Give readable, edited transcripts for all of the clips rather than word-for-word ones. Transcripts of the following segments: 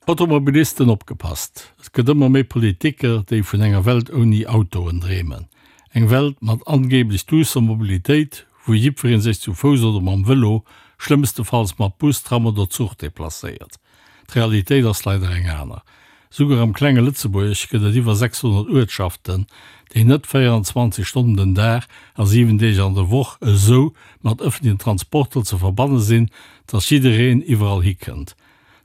Automobilisten opgepasst, et gëtt ëmmer méi Politiker, déi vun enger Welt ouni Autoen dreemen. Eng Welt mat angeeblech duusser Mobilitéit, wou jiddweree sech zu Fouss oder mam Vëlo, schlëmmstefalls mat Bus, Tram oder Zuch deplacéiert. D'Realitéit ass leider eng aner. Souguer am klenge Lëtzebuerg gëtt et iwwer 600 Uertschaften, déi net 24 Stonnen den Dag a 7 Deeg an der Woch esou mat ëffentlechen Transporter ze verbanne sinn, dass jiddereen iwwerall hikënnt.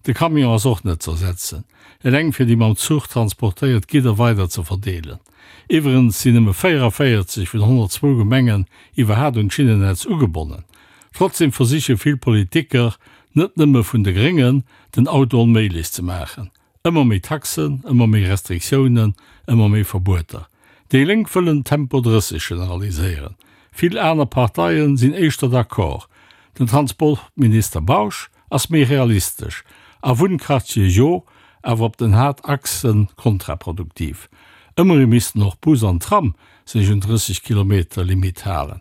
De Camion ass och net z'ersetzen, eleng fir déi mam Zuch transportéiert Gidder weider ze verdeelen. Iwwerens sinn nëmme 44 vun 102 Gemengen iwwerhaat un d'Schinnennetz ugebonnen. Trotzdem versiche vill Politiker, net nëmme vun de Gréngen, den Auto onméiglech ze maachen. Ëmmer méi Taxen, ëmmer méi Restriktiounen, ëmmer méi Verbueter. Déi Lénk wëllen Tempo 30 generaliséieren. Vill aner Parteien sinn éischter d'accord. Den Transportminister Bausch ass méi realistesch, a Wunnquartiere jo, awer op den Haaptachse kontraproduktiv. Ëmmerhi missten och Bus an Tram sech un 30 Kilometer Limitt halen.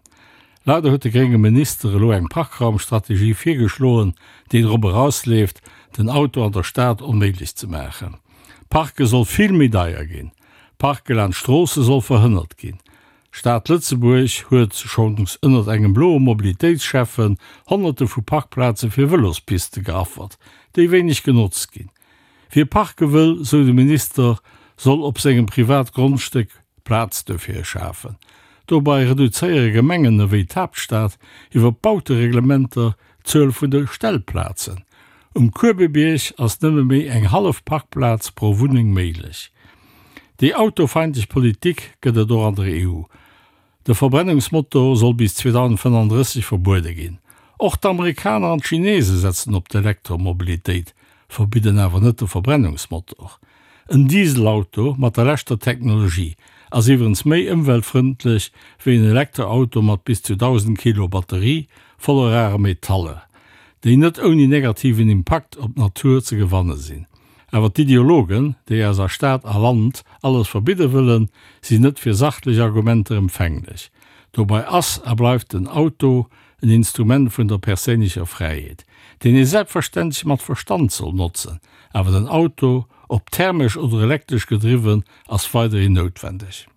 Leider huet de grénge Minister elo eng Parkraumstrategie virgeschloen, déi drop erausleeft, den Auto an der Stad onméiglech ze maachen. Parke soll vill méi deier ginn, Parke laanscht Stroosse soll verhënnert ginn. D'Stad Lëtzebuerg huet schonns ënnert engem bloe Mobilitéitsschäffen Honnerte vu Parkplaze fir Vëlospiste geaffert, déi wéineg genotzt ginn. Wie parke wëll, sou de Minister, soll op sengem Privatgrondstéck Plaz dofir schafen. Dobei reduzéiere Gemengen ewéi d'Haaptstad iwwer Bautereglementer d'Zuel vun de Stellplazen. Um Kuebebierg ass nëmme méi eng hallef Parkplaz pro Wunneng méiglech. Déi autofeindlech Politik gëtt et och an der EU. De Verbrennungsmotor soll bis 2035 verbuede ginn. Och d'Amerikaner an d'Chinese setzen op d'Elektromobilitéit, verbidden awer net de Verbrennungsmotor. En Dieselauto mat der leschter Technologie ass iwwerens méi ëmweltfrëndlech wéi en Elektroauto mat bis zu 1.000 Kilo Batterie voller rare Metaller, déi net ouni negativen Impakt op d'Natur ze gewanne sinn. Awer d'Ideologen, déi eis a Stad a Land alles verbidde wëllen, sinn net fir sachlech Argumenter empfänglech. Dobei ass a bleift den Auto en Instrument vun der perséinlecher Fräiheet, deen ee selbstverständlech mat Verstand soll notzen. Awer den Auto, ob thermesch oder elektresch gedriwwen, ass weiderhin noutwendeg.